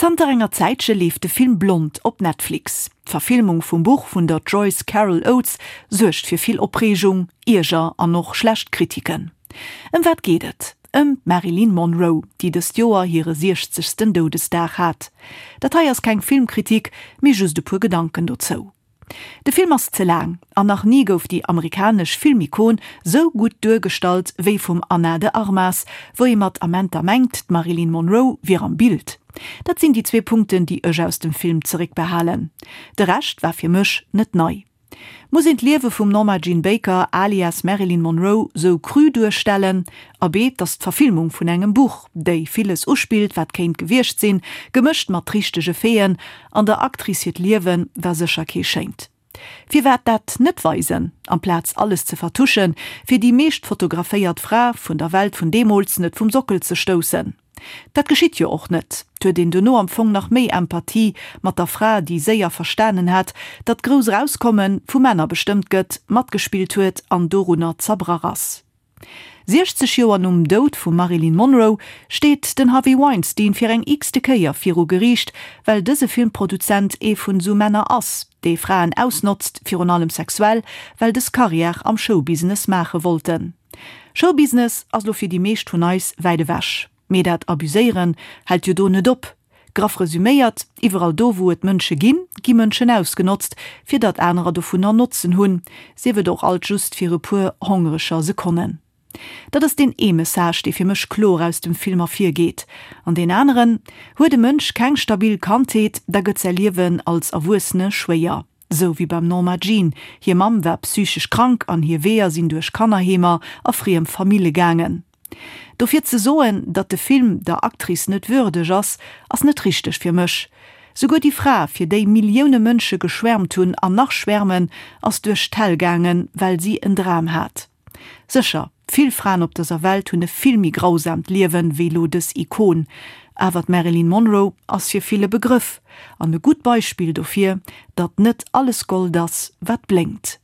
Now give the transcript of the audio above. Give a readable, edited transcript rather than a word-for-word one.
Zanter enger Zäitche leeft de Film Blond op Netflix. D'Verfilmung vum Buch vun der Joyce Carol Oates suergt fir vill Opreegung, Ierger an och schlecht Kritiken. Ëm wat geet et? Ëm d'Marilyn Monroe, déi dëst Joer hire siechzegsten Doudesdag hat. Dat hei ass keng Filmkritik, mee just e puer Gedanken dozou. De Film ass ze laang an nach ni gouf déi amerikanesch Filmikon sou gutt duergestallt wéi vum Ana de Armas, wou ee mat Amenter mengt, d'Marilyn Monroe wier am Bild. Dat sinn déi zwee Punkten, déi ech aus dem Film zeréckbehalen. De Rescht war fir mech net nei. Muss een d'Liewe vum Norma Jean Baker alias Marilyn Monroe sou cru duerstellen? Abee, 't ass d'Verfilmung vun engem Buch, déi villes uspillt, wat kéint gewiescht sinn, gemëscht mat richtege Faiten, an der Actrice hiert Liewe war sécher kee schéint. Firwat dat net weisen, amplaz alles ze vertuschen, fir déi meescht fotograféiert Fra vun der Welt vun deemools net vum Sockel ze stoussen? Dat geschitt jo och net. 't huet een dono am Fong nach méi Empathie mat der Fra, déi séier verstanen hat, datt grouss Erauskommen vu Männer bestëmmt gëtt, matgespillt huet an dorunner zerbrach ass. 60 Joer nom Doud vum Marilyn Monroe steet den Harvey Weinstein fir eng x-te Kéier viru Geriicht, well dëse Filmproduzent ee vun esou Männer ass, dee Fraen ausnotzt, virun allem sexuell, well dës Karriär am Showbusiness maache wollten. Showbusiness ass lo fir déi meescht vun eis wäit ewech, mee dat Abuséieren hält jo do net op. Graff resüméiert, iwwerall do wou et Mënsche ginn, gi Mënschen ausgenotzt, fir datt anerer dovunner Notzen hunn, sief et och alt just fir e puer hongereger Sekonnen. Dat ass deen ee Message, dee fir mech kloer aus dem Film ervirgeet. An deen aneren, Huet e Mënsch keng stabil Kandheet, da gëtt säi Liewen als Erwuessene schwéier. Sou wéi beim Norma Jean, hir Mamm war psychesch krank an hir Weeër sinn duerch Kannerheemer a friem Famille gaangen. Dofir ze soen, datt de Film der Actrice net würdeg ass, ass net richteg fir mech. Souguer déi Fra, fir déi Millioune Mënsche geschwärmt hunn an nach schwärmen, ass duerch d'Hell gaangen, well si en Dram hat. Sécher, vill Fraen op dëser Welt hunn e vill méi grausaamt Liewen wéi lo dës Ikon, awer d'Marilyn Monroe ass fir vill e Begrëff an e gutt Beispill dofir, datt net alles Gold ass, wat blénkt.